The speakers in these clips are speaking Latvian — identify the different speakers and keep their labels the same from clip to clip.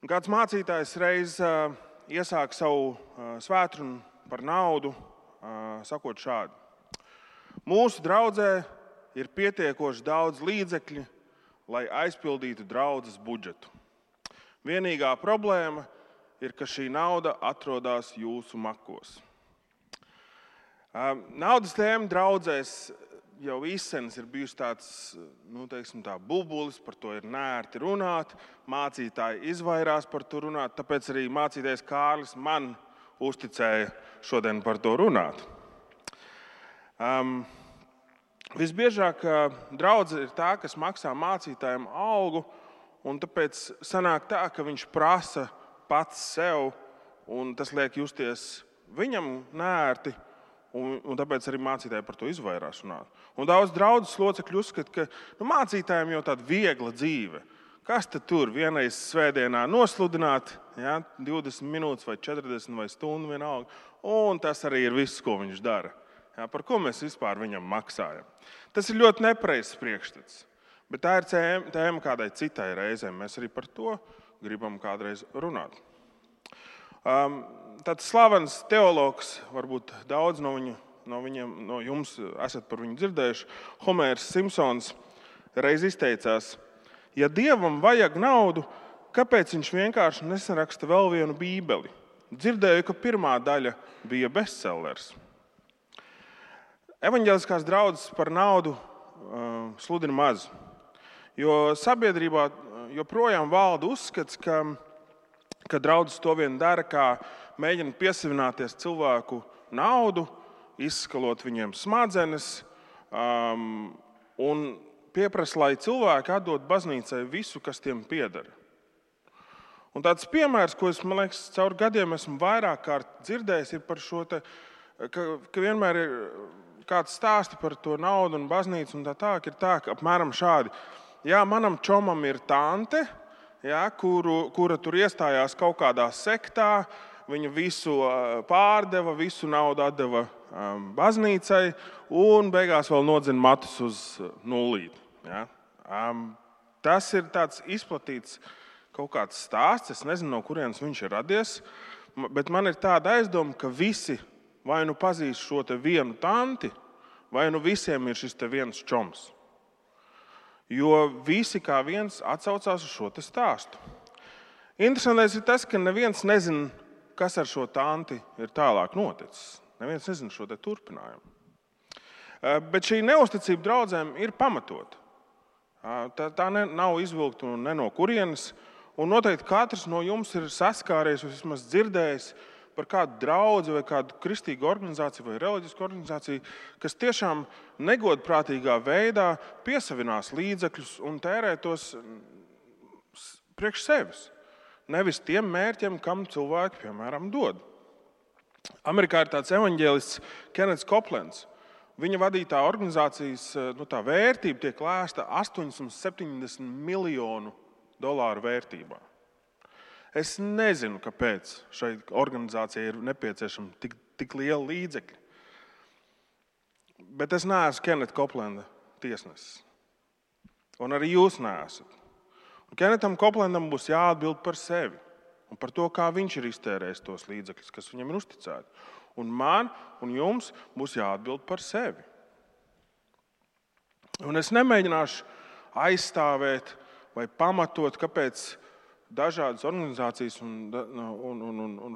Speaker 1: Kāds mācītājs reiz iesāk savu svētrunu par naudu, sakot šādi: Mūsu draudzē ir pietiekoši daudz līdzekļu, lai aizpildītu draudzes budžetu. Vienīgā problēma ir, ka šī nauda atrodas jūsu makos. Naudas tēma draudzēs jau izsenis ir bijusi tāds, bubulis, par to ir nērti runāt, mācītāji izvairās par to runāt, tāpēc arī mācītājs Kārlis man uzticēja šodien par to runāt. Visbiežāk draudze ir tā, kas maksā mācītājiem algu, un tāpēc sanāk tā, ka viņš prasa pats sev, un tas liek justies viņam nērti. Un tāpēc arī mācītāji par to izvairās runāt. Un daudz draudzes locekļu uzskata, ka mācītājiem jau tāda viegla dzīve. Kas tad tur vienreiz svētdienā nosludināt, 20 minūtes vai 40 vai stundu vienalga, un tas arī ir viss, ko viņš dara. Par ko mēs vispār viņam maksājam. Tas ir ļoti nepareizs priekšstats, bet tā ir tēma kādai citai reizei. Mēs arī par to gribam kādreiz runāt. Tāds slavens teologs, varbūt daudz no jums esat par viņu dzirdējuši, Homērs Simpsons reiz izteicās: ja Dievam vajag naudu, kāpēc viņš vienkārši nesaraksta vēl vienu bībeli? Dzirdēju, ka pirmā daļa bija bestsellers. Evaņģeliskās draudzes par naudu sludina maz, jo sabiedrībā joprojām valda uzskats, ka draudzes to vien dara, kā mēģina piesavināties cilvēku naudu, izskalot viņiem smadzenes un pieprasa, lai cilvēki atdod baznīcai visu, kas tiem pieder. Un tāds piemērs, ko es, man liekas, caur gadiem esmu vairāk kārt dzirdējis, ir par šo, ka vienmēr ir kāds stāsti par to naudu un baznīcu, un ir tā, ka apmēram šādi: jā, manam čomam ir tante, kura tur iestājās kaut kādā sektā, viņa visu pārdeva, visu naudu atdeva baznīcai un beigās vēl nodzina matus uz nullīti. Tas ir tāds izplatīts kaut kāds stāsts, es nezinu, no kurienes viņš ir radies, bet man ir tāda aizdoma, ka visi vai nu pazīst šo te vienu tanti, vai nu visiem ir šis te viens čoms. Jo visi kā viens atsaucās uz šo te stāstu. Interesantais ir tas, ka neviens nezina, kas ar šo tanti ir tālāk noticis. Neviens nezina šo te turpinājumu. Bet šī neusticība draudzēm ir pamatota. Tā nav izvilkta ne no kurienes, un noteikti katrs no jums ir saskāries vai vismaz dzirdējis par kādu draudzi vai kādu kristīgu organizāciju vai reliģisku organizāciju, kas tiešām negodprātīgā veidā piesavinās līdzekļus un tērē tos priekš sevis. Nevis tiem mērķiem, kam cilvēki, piemēram, dod. Amerikā ir tāds evaņģēlists Kennets Copelands. Viņa vadītā organizācijas tā vērtība tiek lēsta $870 miljonu vērtībā. Es nezinu, kāpēc šai organizācijai ir nepieciešama tik liela līdzekļa. Bet es neesmu Kenneta Copelanda tiesnesis. Un arī jūs neesat. Kennetam Copelandam būs jāatbild par sevi un par to, kā viņš ir iztērējis tos līdzekļus, kas viņam ir uzticēti. Un man un jums būs jāatbild par sevi. Un es nemēģināšu aizstāvēt vai pamatot, kāpēc dažādas organizācijas un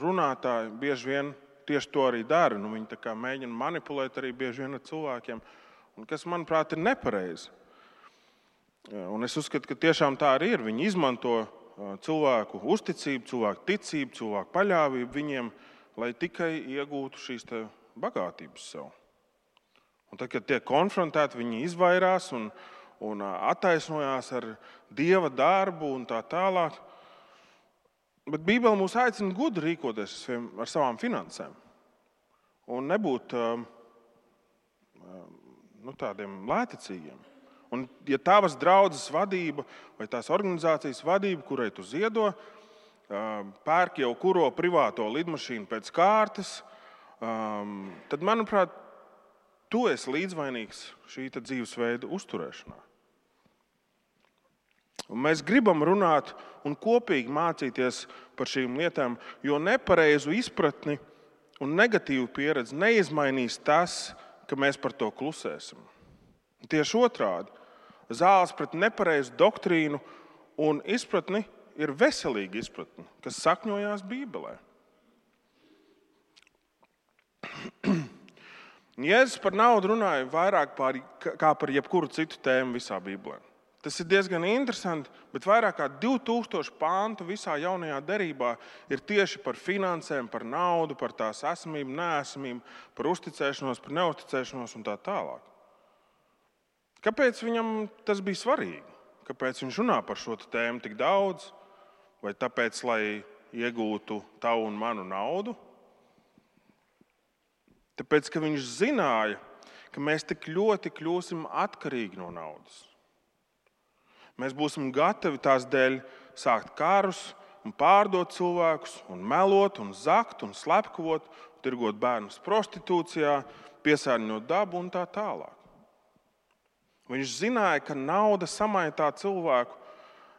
Speaker 1: runātāji bieži vien tieši to arī dara. Viņi tā kā mēģina manipulēt arī bieži vien ar cilvēkiem, un kas, manuprāt, ir nepareizi. Un es uzskatu, ka tiešām tā arī ir. Viņi izmanto cilvēku uzticību, cilvēku ticību, cilvēku paļāvību viņiem, lai tikai iegūtu šīs bagātības sev. Un tad, kad tiek konfrontēti, viņi izvairās un attaisnojās ar Dieva darbu un tā tālāk. Bet Bībele mūs aicina gudri rīkoties ar savām finansēm un nebūt tādiem lēticīgiem. Un, ja tavas draudzes vadība vai tās organizācijas vadība, kurai tu ziedo, pērk jau kuro privāto lidmašīnu pēc kārtas, tad, manuprāt, tu esi līdzvainīgs šī dzīvesveida uzturēšanā. Un mēs gribam runāt un kopīgi mācīties par šīm lietām, jo nepareizu izpratni un negatīvu pieredzi neizmainīs tas, ka mēs par to klusēsim. Tieši otrādi, zāles pret nepareizu doktrīnu un izpratni ir veselīga izpratne, kas sakņojās Bībelē. Jēzus par naudu runāja vairāk kā par jebkuru citu tēmu visā Bībelē. Tas ir diezgan interesanti, bet vairāk kā 2000 pāntu visā jaunajā derībā ir tieši par finansēm, par naudu, par tās esamību, neesamību, par uzticēšanos, par neuzticēšanos un tā tālāk. Kāpēc viņam tas bija svarīgi? Kāpēc viņš runā par šo tēmu tik daudz? Vai tāpēc, lai iegūtu tavu un manu naudu? Tāpēc, ka viņš zināja, ka mēs tik ļoti kļūsim atkarīgi no naudas. Mēs būsim gatavi tās dēļ sākt karus un pārdot cilvēkus, un melot, un zakt, un slepkavot, tirgot bērnus prostitūcijā, piesārņot dabu un tā tālāk. Viņš zināja, ka nauda samaitā cilvēku,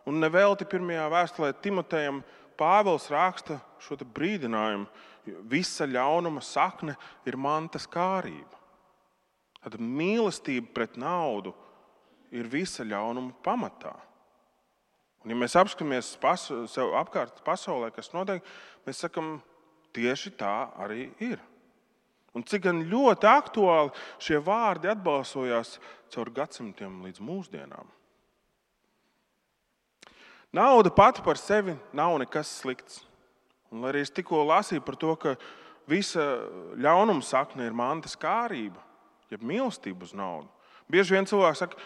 Speaker 1: un nevelti pirmajā vēstulē Timotejam Pāvils raksta šo brīdinājumu. Visa ļaunuma sakne ir mantas kārība. Tad mīlestība pret naudu ir visa ļaunuma pamatā. Un ja mēs apskatāmies sev apkārt pasaulē, kas notiek, mēs sakam, tieši tā arī ir. Un cik gan ļoti aktuāli šie vārdi atbalsojās caur gadsimtiem līdz mūsdienām. Nauda pati par sevi nav nekas slikts. Un arī es tikko lasīju par to, ka visa ļaunuma sakne ir mantas kārība, jeb mīlestība uz naudu. Bieži vien cilvēks saka,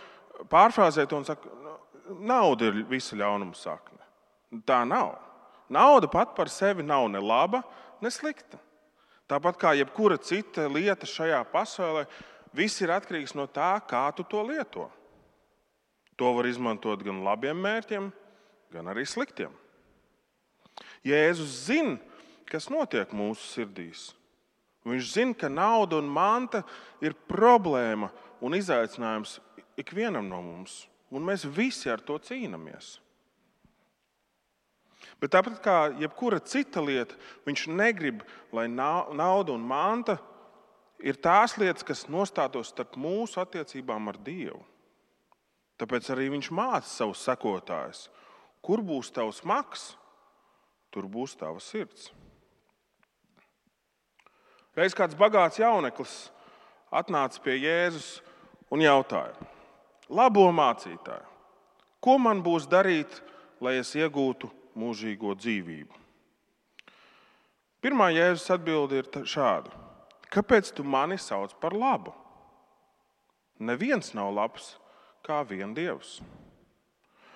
Speaker 1: pārfrāzē to un saka, nauda ir visa ļaunuma sakne. Tā nav. Nauda pat par sevi nav ne laba, ne slikta. Tāpat kā jebkura cita lieta šajā pasaulē, viss ir atkarīgs no tā, kā tu to lieto. To var izmantot gan labiem mērķiem, gan arī sliktiem. Jēzus zina, kas notiek mūsu sirdīs. Viņš zina, ka nauda un manta ir problēma un izaicinājums ikvienam no mums. Un mēs visi ar to cīnāmies. Bet tāpat kā jebkura cita lieta, viņš negrib, lai nauda un manta ir tās lietas, kas nostātos starp mūsu attiecībām ar Dievu. Tāpēc arī viņš māca savus sekotājus. Kur būs tavs maks, tur būs tava sirds. Reiz kāds bagāts jauneklis atnāca pie Jēzus un jautāja: Labo mācītāju, ko man būs darīt, lai es iegūtu mūžīgo dzīvību? Pirmā Jēzus atbilde ir šāda: Kāpēc tu mani sauc par labu? Neviens nav labs kā vien Dievs.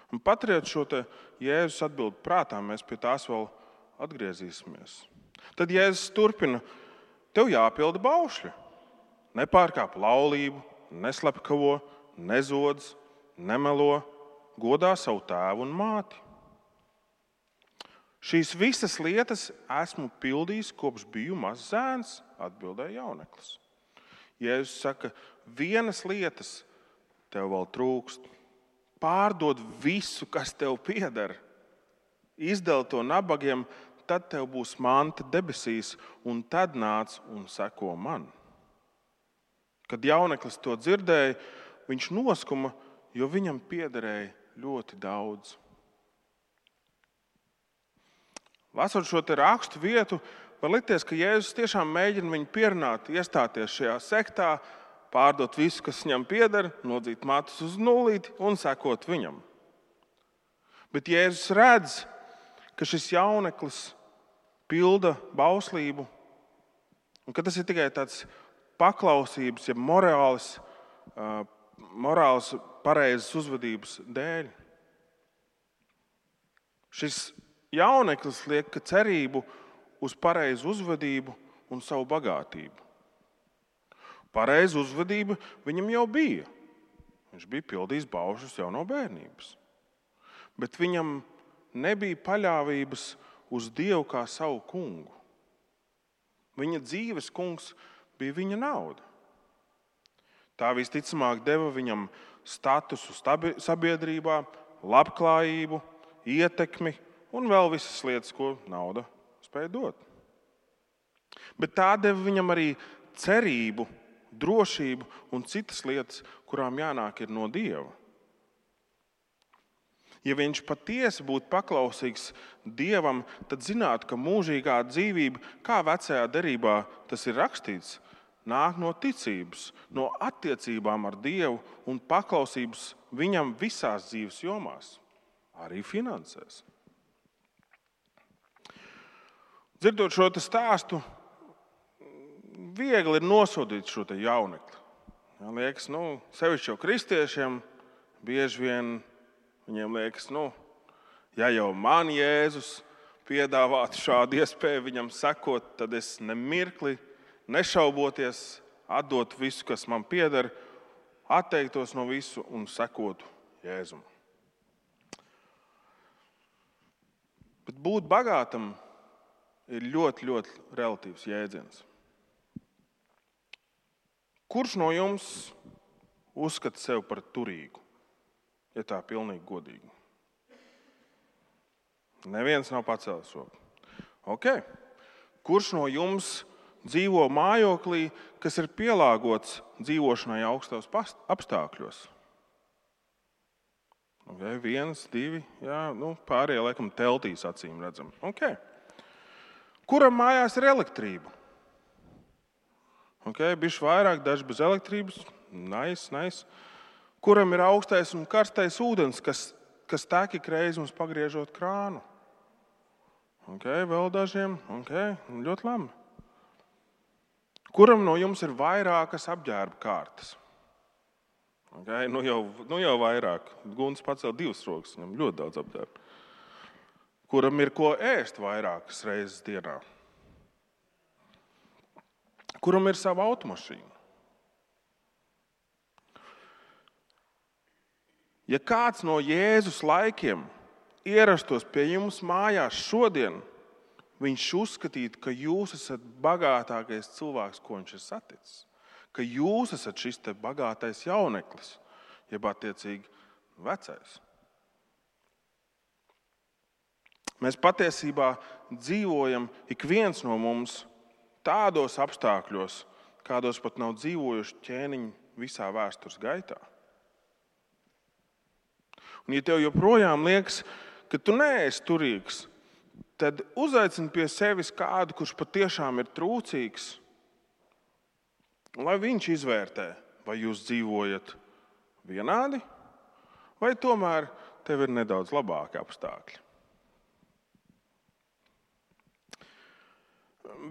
Speaker 1: Un paturiet šo Jēzus atbildi prātā, mēs pie tās vēl atgriezīsimies. Tad Jēzus turpina: Tev jāpilda baušļi. Nepārkāp laulību, neslepkavo, nezodz, nemelo, godā savu tēvu un māti. Šīs visas lietas esmu pildījis, kopš biju mazs zēns, atbildēja jauneklis. Jēzus saka, vienas lietas tev vēl trūkst. Pārdod visu, kas tev pieder. Izdali to nabagiem, tad tev būs manta debesīs, un tad nāc un seko man. Kad jauneklis to dzirdēja, viņš noskuma, jo viņam piederēja ļoti daudz. Lasot šo rakstu vietu, var likties, ka Jēzus tiešām mēģina viņu pierunāt, iestāties šajā sektā, pārdot visu, kas viņam pieder, nodzīt matus uz nulīti un sekot viņam. Bet Jēzus redz, ka šis jauneklis pilda bauslību, un ka tas ir tikai tāds paklausības, ja morāls pareizas uzvedības dēļ. Šis jauneklis liek cerību uz pareizu uzvedību un savu bagātību. Pareiza uzvedība viņam jau bija. Viņš bija pildījis baušļus jau no bērnības. Bet viņam nebija paļāvības uz Dievu kā savu kungu. Viņa dzīves kungs bija viņa nauda. Tā visticamāk deva viņam statusu sabiedrībā, labklājību, ietekmi un vēl visas lietas, ko nauda spēja dot. Bet tā deva viņam arī cerību, drošību un citas lietas, kurām jānāk ir no Dieva. Ja viņš patiesi būtu paklausīgs Dievam, tad zinātu, ka mūžīgā dzīvība, kā vecajā derībā tas ir rakstīts, nāk no ticības, no attiecībām ar Dievu un paklausības viņam visās dzīves jomās, arī finansēs. Dzirdot šo stāstu, viegli ir nosodīt šo jaunekli. Liekas, sevišķi jau kristiešiem bieži vien viņiem liekas, ja jau man Jēzus piedāvātu šādu iespēju viņam sekot, tad es nemirkli, nešauboties, atdot visu, kas man pieder, atteiktos no visu un sekotu Jēzum. Bet būt bagātam ir ļoti, ļoti relatīvs jēdziens. Kurš no jums uzskata sevi par turīgu? Ja tā pilnīgi godīgi. Neviens nav pacēlis roku. Okay. Kurš no jums dzīvo mājoklī, kas ir pielāgots dzīvošanai augstos apstākļos? Okay. 1, 2, jā, pārējie laikam teltīs acīm redzam. Okay. Kuram mājās ir elektrība? Okay. Bišķi vairāk, daži bez elektrības. Nice. Kuram ir augstais un karstais ūdens, kas tek ik reizi mums pagriežot krānu? Okay, vēl dažiem. Okay, ļoti labi. Kuram no jums ir vairākas apģērba kārtas? Okay, jau vairāk. Gunts pacēl 2 rokas, viņam ļoti daudz apģērba. Kuram ir ko ēst vairākas reizes dienā? Kuram ir sava automašīna? Ja kāds no Jēzus laikiem ierastos pie jums mājās šodien, viņš uzskatītu, ka jūs esat bagātākais cilvēks, ko viņš ir saticis. Ka jūs esat šis te bagātais jauneklis, jeb attiecīgi vecais. Mēs patiesībā dzīvojam ik viens no mums tādos apstākļos, kādos pat nav dzīvojuši ķēniņi visā vēstures gaitā. Un ja tev joprojām liekas, ka tu neesi turīgs, tad uzaicini pie sevis kādu, kurš patiešām ir trūcīgs, lai viņš izvērtē, vai jūs dzīvojat vienādi, vai tomēr tev ir nedaudz labāki apstākļi.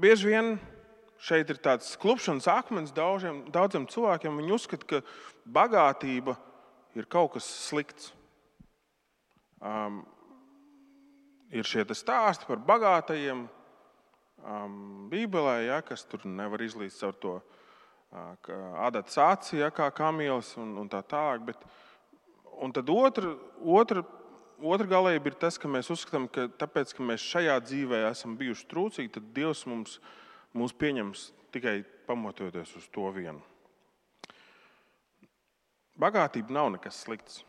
Speaker 1: Bieži vien šeit ir tāds klupšanas akmens daudziem cilvēkiem. Viņi uzskata, ka bagātība ir kaut kas slikts. Ir šie stāsti par bagātajiem Bībelē, kas tur nevar izlīst caur to adatas aci, kā kamielis un tā tālāk. Un tad otra galība ir tas, ka mēs uzskatām, ka tāpēc, ka mēs šajā dzīvē esam bijuši trūcīgi, tad Dievs mūs pieņems tikai pamatojoties uz to vienu. Bagātība nav nekas slikts.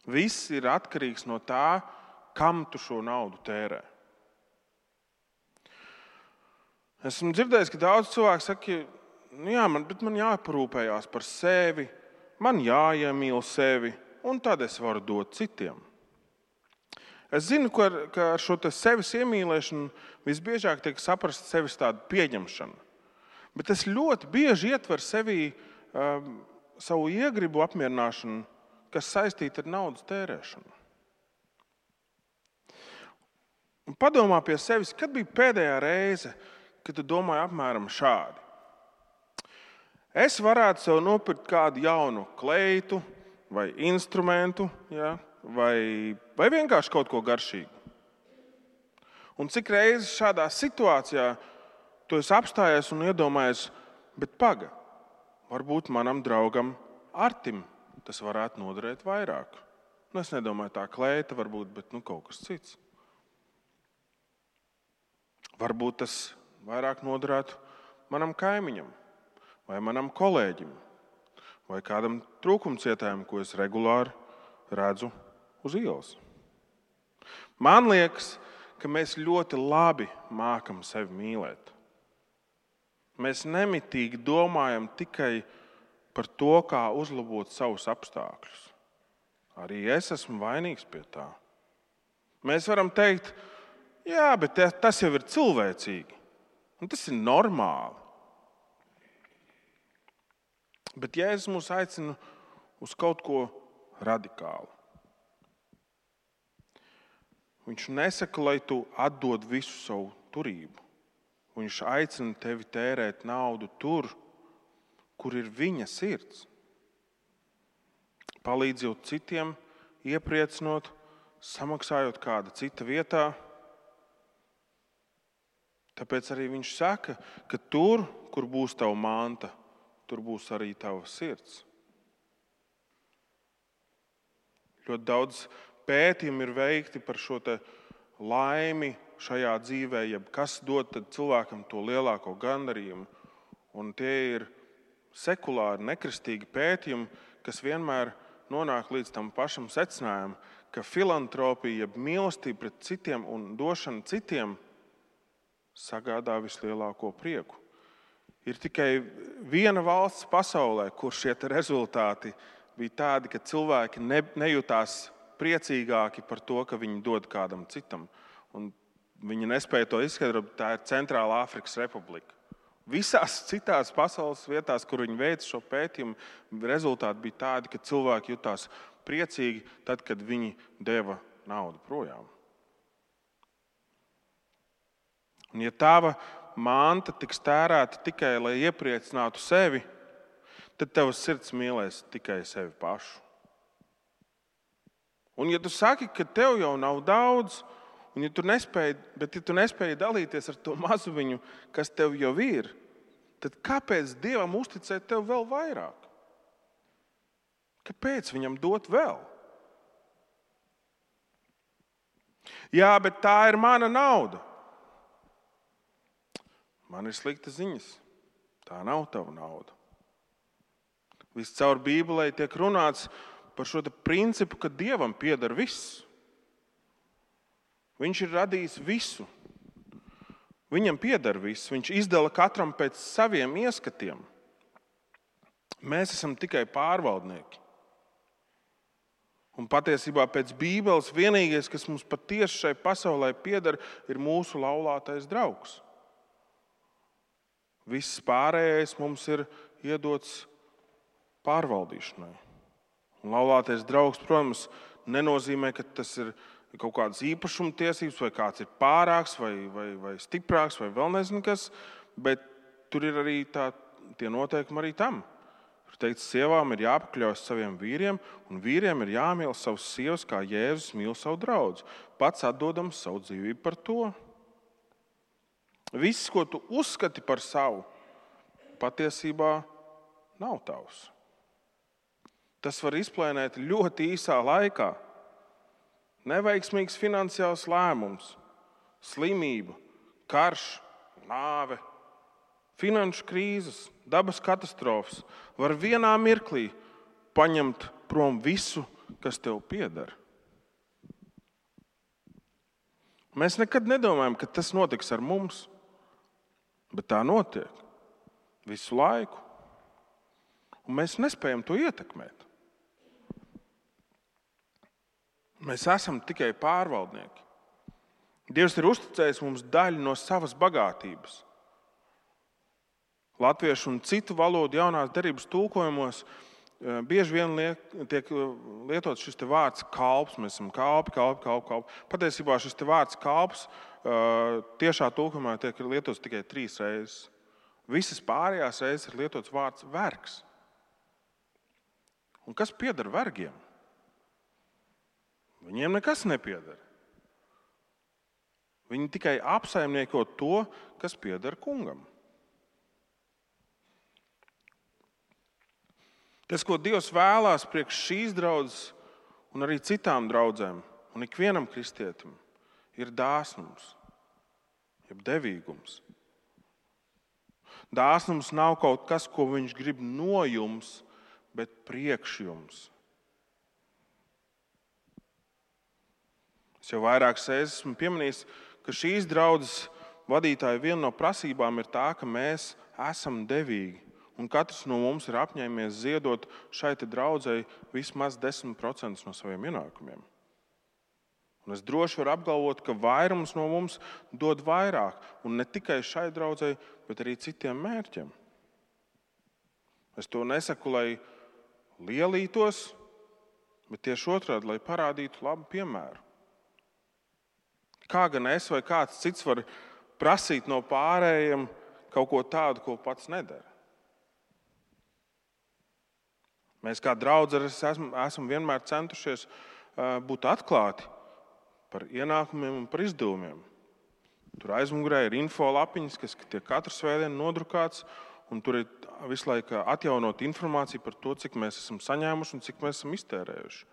Speaker 1: Viss ir atkarīgs no tā, kam tu šo naudu tērē. Esmu dzirdējis, ka daudz cilvēku saka, man jāparūpējās par sevi, man jāiemīl sevi, un tad es varu dot citiem. Es zinu, ka ar šo sevis iemīlēšanu visbiežāk tiek saprast sevis tādu pieņemšanu. Bet es ļoti bieži ietveru sevī savu iegribu apmierināšanu, kas saistīta ar naudas tērēšanu. Un padomā pie sevis, kad bija pēdējā reize, kad tu domāji apmēram šādi. Es varētu sev nopirkt kādu jaunu kleitu vai instrumentu, vai vienkārši kaut ko garšīgu. Un cik reizes šādā situācijā tu esi apstājies un iedomājies, bet varbūt manam draugam Artim tas varētu noderēt vairāk. Es nedomāju tā kleita varbūt, bet kaut kas cits. Varbūt tas vairāk noderētu manam kaimiņam, vai manam kolēģim, vai kādam trūkumcietājam, ko es regulāri redzu uz ielas. Man liekas, ka mēs ļoti labi mākam sevi mīlēt. Mēs nemitīgi domājam tikai par to, kā uzlabot savus apstākļus. Arī es esmu vainīgs pie tā. Mēs varam teikt, jā, bet tas jau ir cilvēcīgi. Un tas ir normāli. Bet Jēzus mūs aicina uz kaut ko radikālu. Viņš nesaka, lai tu atdod visu savu turību. Viņš aicina tevi tērēt naudu tur, kur ir viņa sirds. Palīdzot citiem, iepriecinot, samaksājot kāda cita vietā. Tāpēc arī viņš saka, ka tur, kur būs tava manta, tur būs arī tava sirds. Ļoti daudz pētījumi ir veikti par šo te laimi šajā dzīvē, jeb kas dod cilvēkam to lielāko gandarījumu. Un tie ir sekulāri, nekristīgi pētījumi, kas vienmēr nonāk līdz tam pašam secinājumam, ka filantropija, jeb mīlestība pret citiem un došana citiem sagādā vislielāko prieku. Ir tikai viena valsts pasaulē, kur šie rezultāti bija tādi, ka cilvēki nejūtās priecīgāki par to, ka viņi dod kādam citam. Un viņi nespēja to izskaidrot, tā ir Centrālā Afrikas Republika. Visās citās pasaules vietās, kur viņi veica šo pētījumu, rezultāti bija tādi, ka cilvēki jutās priecīgi tad, kad viņi deva naudu projām. Un ja tava manta tiks tērēta tikai, lai iepriecinātu sevi, tad tavs sirds mīlēs tikai sevi pašu. Un ja tu saki, ka tev jau nav daudz, un ja tu nespēji dalīties ar to mazumiņu, kas tev jau ir, tad kāpēc Dievam uzticēt tev vēl vairāk? Kāpēc viņam dot vēl? Jā, bet tā ir mana nauda. Man ir sliktas ziņas. Tā nav tava nauda. Viscaur Bībelē tiek runāts par šo principu, ka Dievam pieder viss. Viņš ir radījis visu. Viņam pieder viss. Viņš izdala katram pēc saviem ieskatiem. Mēs esam tikai pārvaldnieki. Un patiesībā pēc Bībeles vienīgais, kas mums patiesi šai pasaulē pieder, ir mūsu laulātais draugs. Viss pārējais mums ir iedots pārvaldīšanai. Un laulātais draugs, protams, nenozīmē, ka tas ir kaut kādas īpašuma tiesības, vai kāds ir pārāks, vai stiprāks, vai vēl nezinu kas, bet tur ir arī tie noteikumi arī tam. Tur teikts, sievām ir jāpakļaujas saviem vīriem, un vīriem ir jāmīl savas sievas, kā Jēzus mīl savu draudzi, pats atdodams savu dzīvību par to. Viss, ko tu uzskati par savu, patiesībā nav tavs. Tas var izplēnēt ļoti īsā laikā. Neveiksmīgs finansiāls lēmums, slimība, karš, nāve, finanšu krīzes, dabas katastrofas var vienā mirklī paņemt prom visu, kas tev pieder. Mēs nekad nedomājam, ka tas notiks ar mums, bet tā notiek visu laiku. Un mēs nespējam to ietekmēt. Mēs esam tikai pārvaldnieki. Dievs ir uzticējis mums daļu no savas bagātības. Latviešu un citu valodu jaunās derības tulkojumos bieži vien tiek lietots šis vārds kalps. Mēs esam kalpi. Patiesībā šis vārds kalps tiešā tulkojumā tiek lietots tikai 3 reizes. Visas pārējās reizes ir lietots vārds vergs. Un kas pieder vergiem? Viņiem nekas nepieder. Viņi tikai apsaimnieko to, kas pieder kungam. Tas, ko Dievs vēlās priekš šīs draudzes un arī citām draudzēm un ikvienam kristietim, ir dāsnums, jeb devīgums. Dāsnums nav kaut kas, ko viņš grib no jums, bet priekš jums. Es jau vairākas reizes esmu pieminējis, ka šīs draudzes vadītāja viena no prasībām ir tā, ka mēs esam devīgi. Un katrs no mums ir apņēmies ziedot šai draudzei vismaz 10% no saviem ienākumiem. Un es droši varu apgalvot, ka vairums no mums dod vairāk. Un ne tikai šai draudzei, bet arī citiem mērķiem. Es to nesaku, lai lielītos, bet tieši otrādi, lai parādītu labu piemēru. Kā gan es vai kāds cits var prasīt no pārējiem kaut ko tādu, ko pats nedara? Mēs kā draudzene esam vienmēr centušies būt atklāti par ienākumiem un par izdevumiem. Tur aizmugurē ir info lapiņas, kas tiek katru svētdienu nodrukāts, un tur ir visu laiku atjaunot informāciju par to, cik mēs esam saņēmuši un cik mēs esam iztērējuši.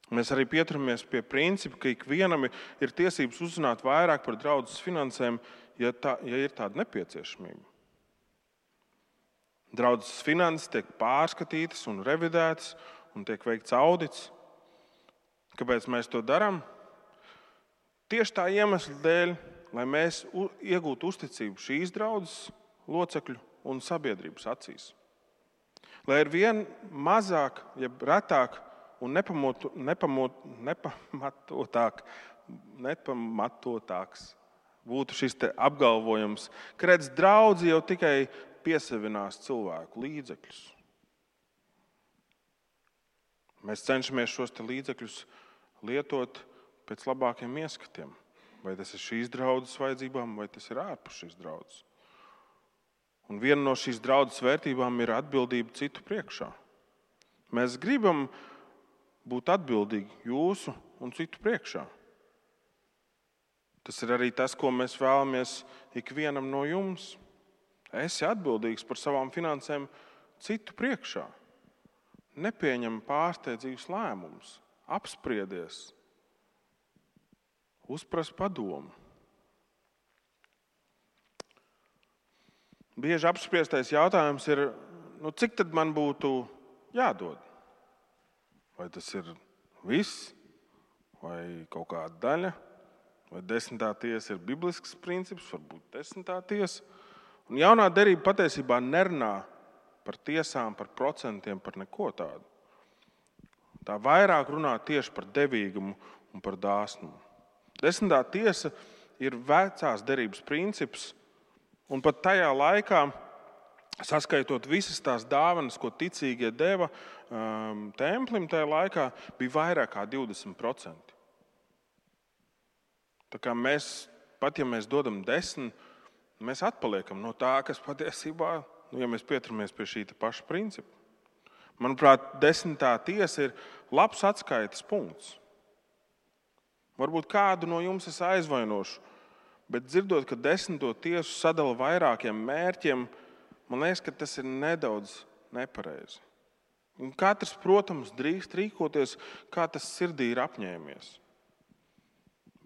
Speaker 1: Mēs arī pieturamies pie principa, ka ikvienam ir tiesības uzzināt vairāk par draudzes finansēm, ja ir tāda nepieciešamība. Draudzes finanses tiek pārskatītas un revidētas un tiek veikts audits. Kāpēc mēs to darām? Tieši tā iemesla dēļ, lai mēs iegūtu uzticību šīs draudzes locekļu un sabiedrības acīs. Lai ir vien mazāk, jeb retāk un nepamatotāks būtu šis apgalvojums, ka redz, draudze jau tikai piesavinās cilvēku līdzekļus. Mēs cenšamies šos līdzekļus lietot pēc labākiem ieskatiem. Vai tas ir šīs draudzes vajadzībām, vai tas ir ārpus šīs draudzes. Un viena no šīs draudzes vērtībām ir atbildība citu priekšā. Mēs gribam būt atbildīgi jūsu un citu priekšā. Tas ir arī tas, ko mēs vēlamies ikvienam no jums. Esi atbildīgs par savām finansēm citu priekšā. Nepieņem pārsteidzīgus lēmumus, apspriedies, uzpras padomu. Bieži apspriestais jautājums ir, cik tad man būtu jādod? Vai tas ir viss, vai kaut kāda daļa, vai 10. tiesa ir biblisks princips, varbūt 10. tiesa. Un jaunā derība patiesībā nerunā par tiesām, par procentiem, par neko tādu. Tā vairāk runā tieši par devīgumu un par dāsnumu. 10. tiesa ir vecās derības princips, un pat tajā laikā, saskaitot visas tās dāvanas, ko ticīgie deva templim, tajā laikā bija vairāk kā 20%. Tā kā mēs, pat ja mēs dodam 10%, mēs atpaliekam no tā, kas patiesībā, ja mēs pieturamies pie šī paša principa. Manuprāt, 10. tiesa ir labs atskaites punkts. Varbūt kādu no jums es aizvainošu, bet dzirdot, ka 10. tiesu sadala vairākiem mērķiem, man liekas, ka tas ir nedaudz nepareizi. Un katrs, protams, drīkst rīkoties, kā tas sirdī ir apņēmies.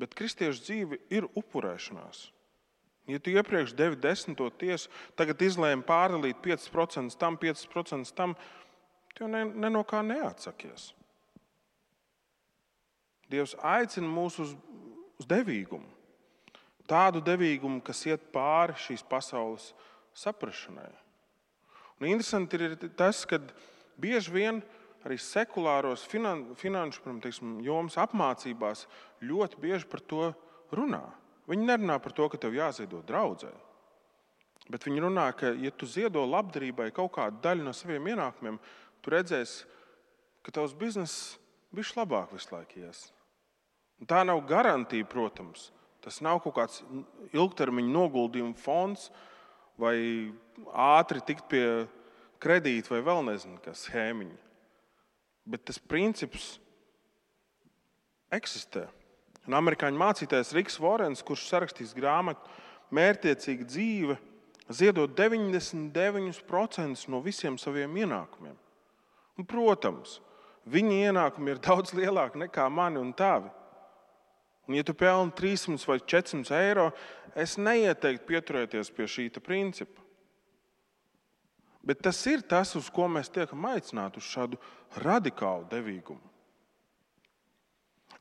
Speaker 1: Bet kristiešu dzīve ir upurēšanās. Ja tu iepriekš devi 10. tiesu, tagad izlēmi pārdalīt 5% tam, 5% tam, tu ne no kā neatsakies. Dievs aicina mūs uz devīgumu. Tādu devīgumu, kas iet pāri šīs pasaules saprašanai. Un interesanti ir tas, ka bieži vien arī sekulāros finanšu jomas apmācībās ļoti bieži par to runā. Viņi nerunā par to, ka tev jāziedo draudzē. Bet viņi runā, ka, ja tu ziedo labdarībai kaut kādu daļu no saviem ienākumiem, tu redzēsi, ka tavs bizness bišķi labāk visu laiku ies. Un tā nav garantija, protams. Tas nav kaut kāds ilgtermiņa noguldījuma fonds vai ātri tikt pie kredīta vai vēl nezinu, kas schēmiņa. Bet tas princips eksistē. Un amerikāņu mācītājs Riks Vorens, kurš sarakstīs grāmatu Mērķtiecīga dzīve, ziedot 99% no visiem saviem ienākumiem. Un, protams, viņa ienākumi ir daudz lielāki nekā mani un tavi. Un, ja tu pelni 300 vai 400 eiro, es neieteiktu pieturēties pie šī principa. Bet tas ir tas, uz ko mēs tiekam aicināti, uz šādu radikālu devīgumu.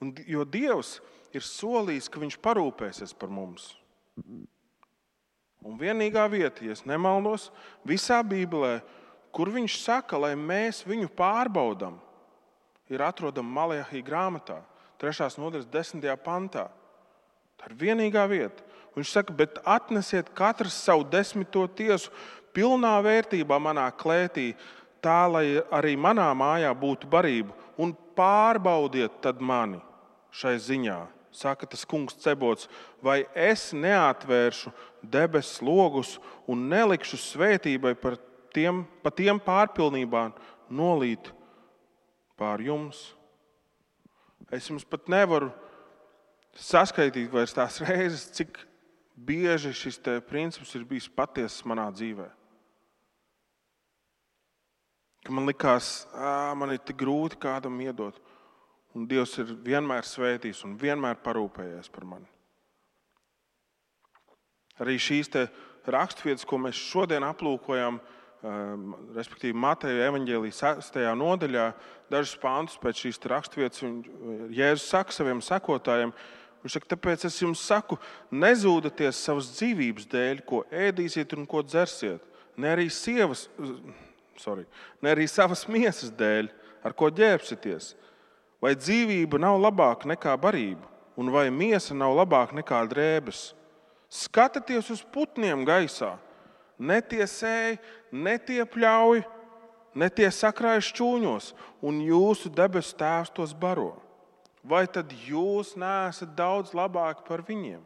Speaker 1: Jo Dievs ir solījis, ka viņš parūpēsies par mums. Un vienīgā vieta, ja es nemaldos, visā Bībelē, kur viņš saka, lai mēs viņu pārbaudam, ir atrodama Malahija grāmatā, 3. nodaļas 10. pantā. Tā ir vienīgā vieta. Viņš saka, bet atnesiet katrs savu 10. tiesu pilnā vērtībā manā klētī, tā, lai arī manā mājā būtu barība, un pārbaudiet tad mani šai ziņā. Saka tas kungs Cebots, vai es neatvēršu debesu logus un nelikšu svētībai pa tiem pārpilnībā nolīt pār jums. Es jums pat nevaru saskaitīt vairs tās reizes, cik bieži šis princips ir bijis patiesas manā dzīvē. Ka man likās, man ir tik grūti kādam iedot. Un Dievs ir vienmēr svētījis un vienmēr parūpējies par mani. Arī šīs raksturvietas, ko mēs šodien aplūkojam, respektīvi Mateja evaņģēlija 6. nodaļā, dažus pāntus pēc šīs raksturvietas Jēzus saka saviem sekotājiem, viņš saka, tāpēc es jums saku, nezūdaties savas dzīvības dēļ, ko ēdīsiet un ko dzersiet, ne arī savas miesas dēļ, ar ko ģērbsieties. Vai dzīvība nav labāka nekā barība, un vai miesa nav labāka nekā drēbes? Skatieties uz putniem gaisā. Ne tie sēj, ne tie pļauj, ne tie sakrāj šķūņos, un jūsu debesu Tēvs tos baro. Vai tad jūs neesat daudz labāki par viņiem?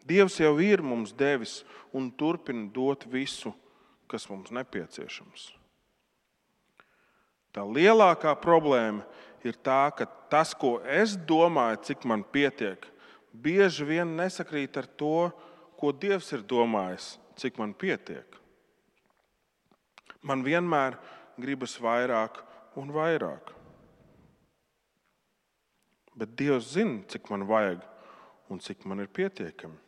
Speaker 1: Dievs jau ir mums devis un turpina dot visu, kas mums nepieciešams. Tā lielākā problēma ir tā, ka tas, ko es domāju, cik man pietiek, bieži vien nesakrīt ar to, ko Dievs ir domājis, cik man pietiek. Man vienmēr gribas vairāk un vairāk. Bet Dievs zina, cik man vajag un cik man ir pietiekami.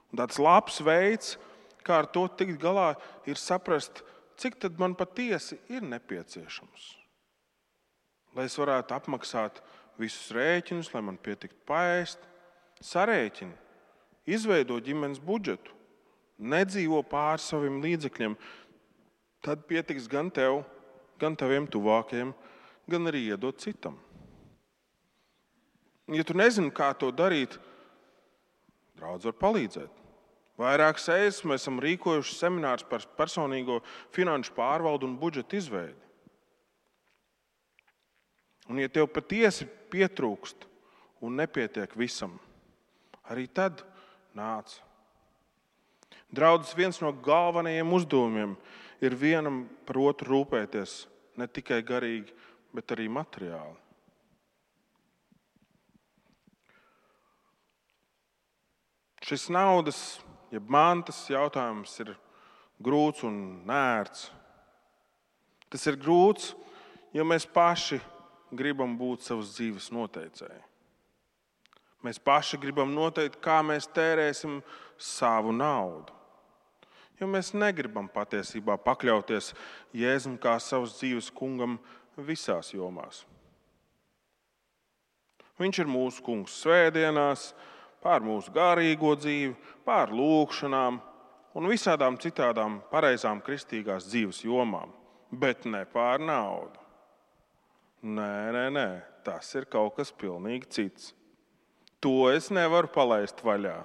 Speaker 1: Un tāds labs veids, kā ar to tikt galā, ir saprast, cik tad man patiesi ir nepieciešams. Lai es varētu apmaksāt visus rēķinus, lai man pietiktu paēst, sarēķini, izveido ģimenes budžetu, nedzīvo pār saviem līdzekļiem, tad pietiks gan tev, gan taviem tuvākajiem, gan arī iedot citam. Ja tu nezini, kā to darīt, draudz var palīdzēt. Vairākas reizes mēs esam rīkojuši seminārus par personīgo finanšu pārvaldu un budžeta izveidi. Un ja tev patiesi pietrūkst un nepietiek visam, arī tad nāc. Draudzes viens no galvenajiem uzdevumiem ir vienam par otru rūpēties, ne tikai garīgi, bet arī materiāli. Šis naudas, jeb mantas jautājums ir grūts un nērts. Tas ir grūts, jo mēs paši gribam būt savas dzīves noteicēji. Mēs paši gribam noteikt, kā mēs tērēsim savu naudu. Jo mēs negribam patiesībā pakļauties Jēzum kā savas dzīves kungam visās jomās. Viņš ir mūsu kungs svētdienās, pār mūsu garīgo dzīvi, pār lūkšanām un visādām citādām pareizām kristīgās dzīves jomām, bet ne pār naudu. Nē, tas ir kaut kas pilnīgi cits. To es nevaru palaist vaļā.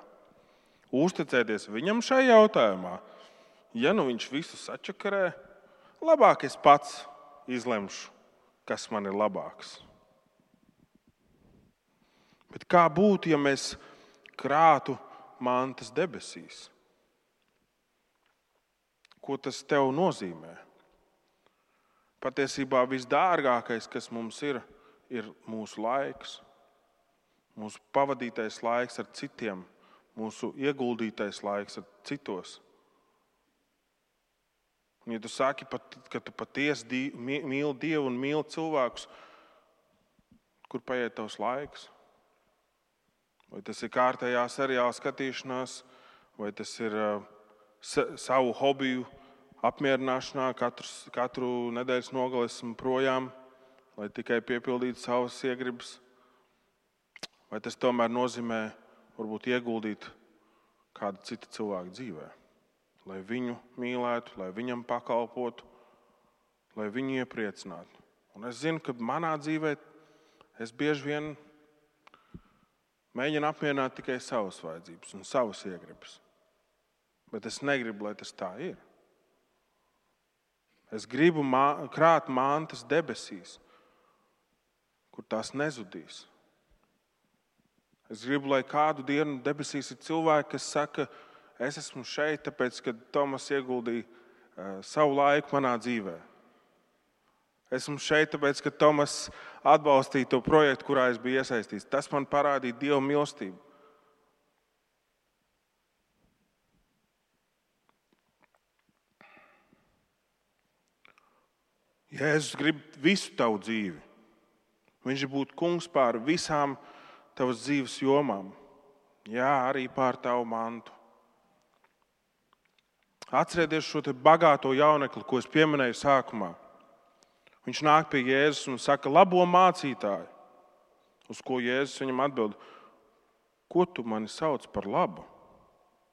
Speaker 1: Uzticēties viņam šajā jautājumā, ja nu viņš visu sačakarē, labāk es pats izlemšu, kas man ir labāks. Bet kā būtu, ja mēs krātu mantas debesīs? Ko tas tev nozīmē? Patiesībā visdārgākais, kas mums ir mūsu laiks, mūsu pavadītais laiks ar citiem, mūsu ieguldītais laiks ar citos. Un, ja tu saki, ka tu patiesi mīli Dievu un mīli cilvēkus, kur paiet tavs laiks? Vai tas ir kārtējā seriāla skatīšanās, vai tas ir savu hobiju apmierināšanā, katru nedēļas nogali esmu projām, lai tikai piepildītu savas iegribas? Vai tas tomēr nozīmē varbūt ieguldīt kādu citu cilvēku dzīvē? Lai viņu mīlētu, lai viņam pakalpotu, lai viņu iepriecinātu. Un es zinu, ka manā dzīvē es bieži vien mēģinu apmierināt tikai savas vajadzības un savas iegribas. Bet es negribu, lai tas tā ir. Es gribu krāt mantas debesīs, kur tās nezudīs. Es gribu, lai kādu dienu debesīs ir cilvēki, kas saka, es esmu šeit, tāpēc, ka Tomas ieguldīja savu laiku manā dzīvē. Esmu šeit, tāpēc, ka Tomas atbalstīja to projektu, kurā es biju iesaistīts. Tas man parādīja Dieva mīlestību. Jēzus grib visu tavu dzīvi. Viņš būtu kungs pār visām tavas dzīves jomām. Jā, arī pār tavu mantu. Atcerieties šo te bagāto jaunekli, ko es pieminēju sākumā. Viņš nāk pie Jēzus un saka, labo mācītāju. Uz ko Jēzus viņam atbild, ko tu mani sauc par labu?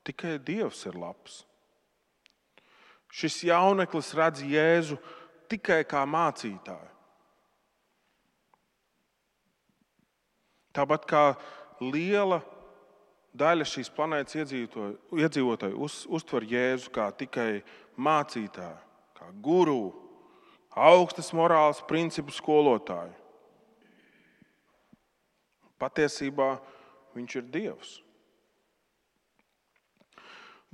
Speaker 1: Tikai Dievs ir labs. Šis jauneklis redz Jēzu tikai kā mācītāju. Tāpat kā liela daļa šīs planētas iedzīvotāju uztver Jēzu kā tikai mācītāju, kā guru, augstas morāles principu skolotāju. Patiesībā viņš ir Dievs.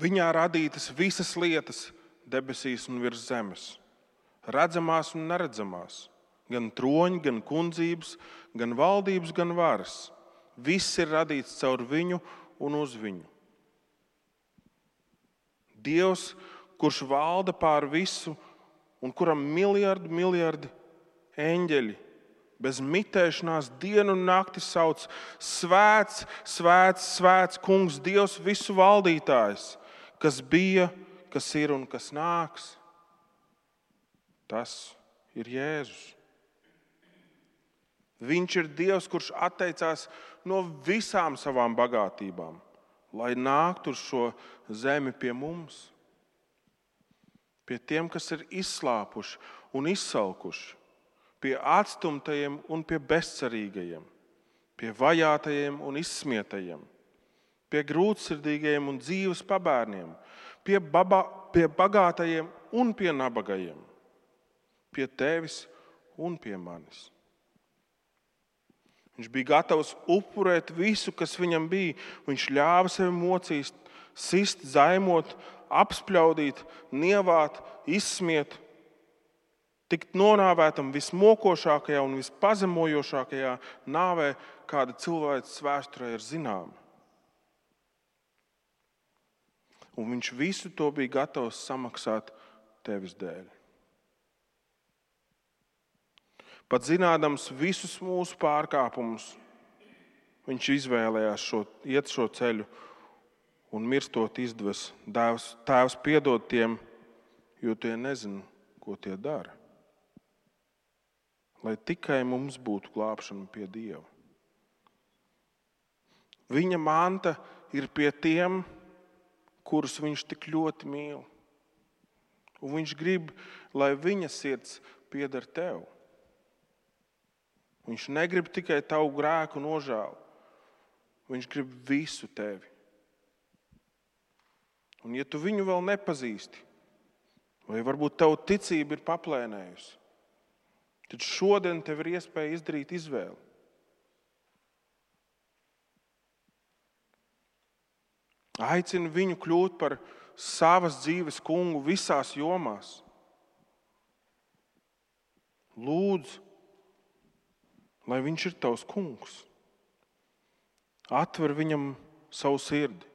Speaker 1: Viņā radītas visas lietas debesīs un virs zemes, redzamās un neredzamās, gan troņi, gan kundzības, gan valdības, gan varas. Viss ir radīts caur viņu un uz viņu. Dievs, kurš valda pār visu un kuram miljardi eņģeļi bez mitēšanās dienu un nakti sauc svēts, svēts, svēts kungs, Dievs visu valdītājs, kas bija, kas ir un kas nāks. Tas ir Jēzus. Viņš ir Dievs, kurš atteicās no visām savām bagātībām, lai nāktu uz šo zemi pie mums. Pie tiem, kas ir izslāpuši un izsalkuši, pie atstumtajiem un pie bezcerīgajiem, pie vajātajiem un izsmietajiem, pie grūtsirdīgajiem un dzīves pabērniem, pie bagātajiem un pie nabagajiem, pie tevis un pie manis. Viņš bija gatavs upurēt visu, kas viņam bija. Viņš ļāva sevi mocīt, sist, zaimot, apspļaudīt, nievāt, izsmiet, tikt nonāvētam vismokošākajā un vispazemojošākajā nāvē, kāda cilvēces vēsturē ir zināma. Un viņš visu to bija gatavs samaksāt tevis dēļ. Pat zinādams visus mūsu pārkāpumus, viņš izvēlējās iet šo ceļu un mirstot izdeves. Tēvs piedod tiem, jo tie nezina, ko tie dara. Lai tikai mums būtu glābšana pie Dieva. Viņa manta ir pie tiem, kurus viņš tik ļoti mīl. Un viņš grib, lai viņa sirds pieder tev. Viņš negrib tikai tavu grēku nožēlu. Viņš grib visu tevi. Un ja tu viņu vēl nepazīsti, vai varbūt tavu ticība ir paplēnējusi, tad šodien tev ir iespēja izdarīt izvēli. Aicini viņu kļūt par savas dzīves kungu visās jomās. Lūdzu, lai viņš ir tavs kungs. Atver viņam savu sirdi.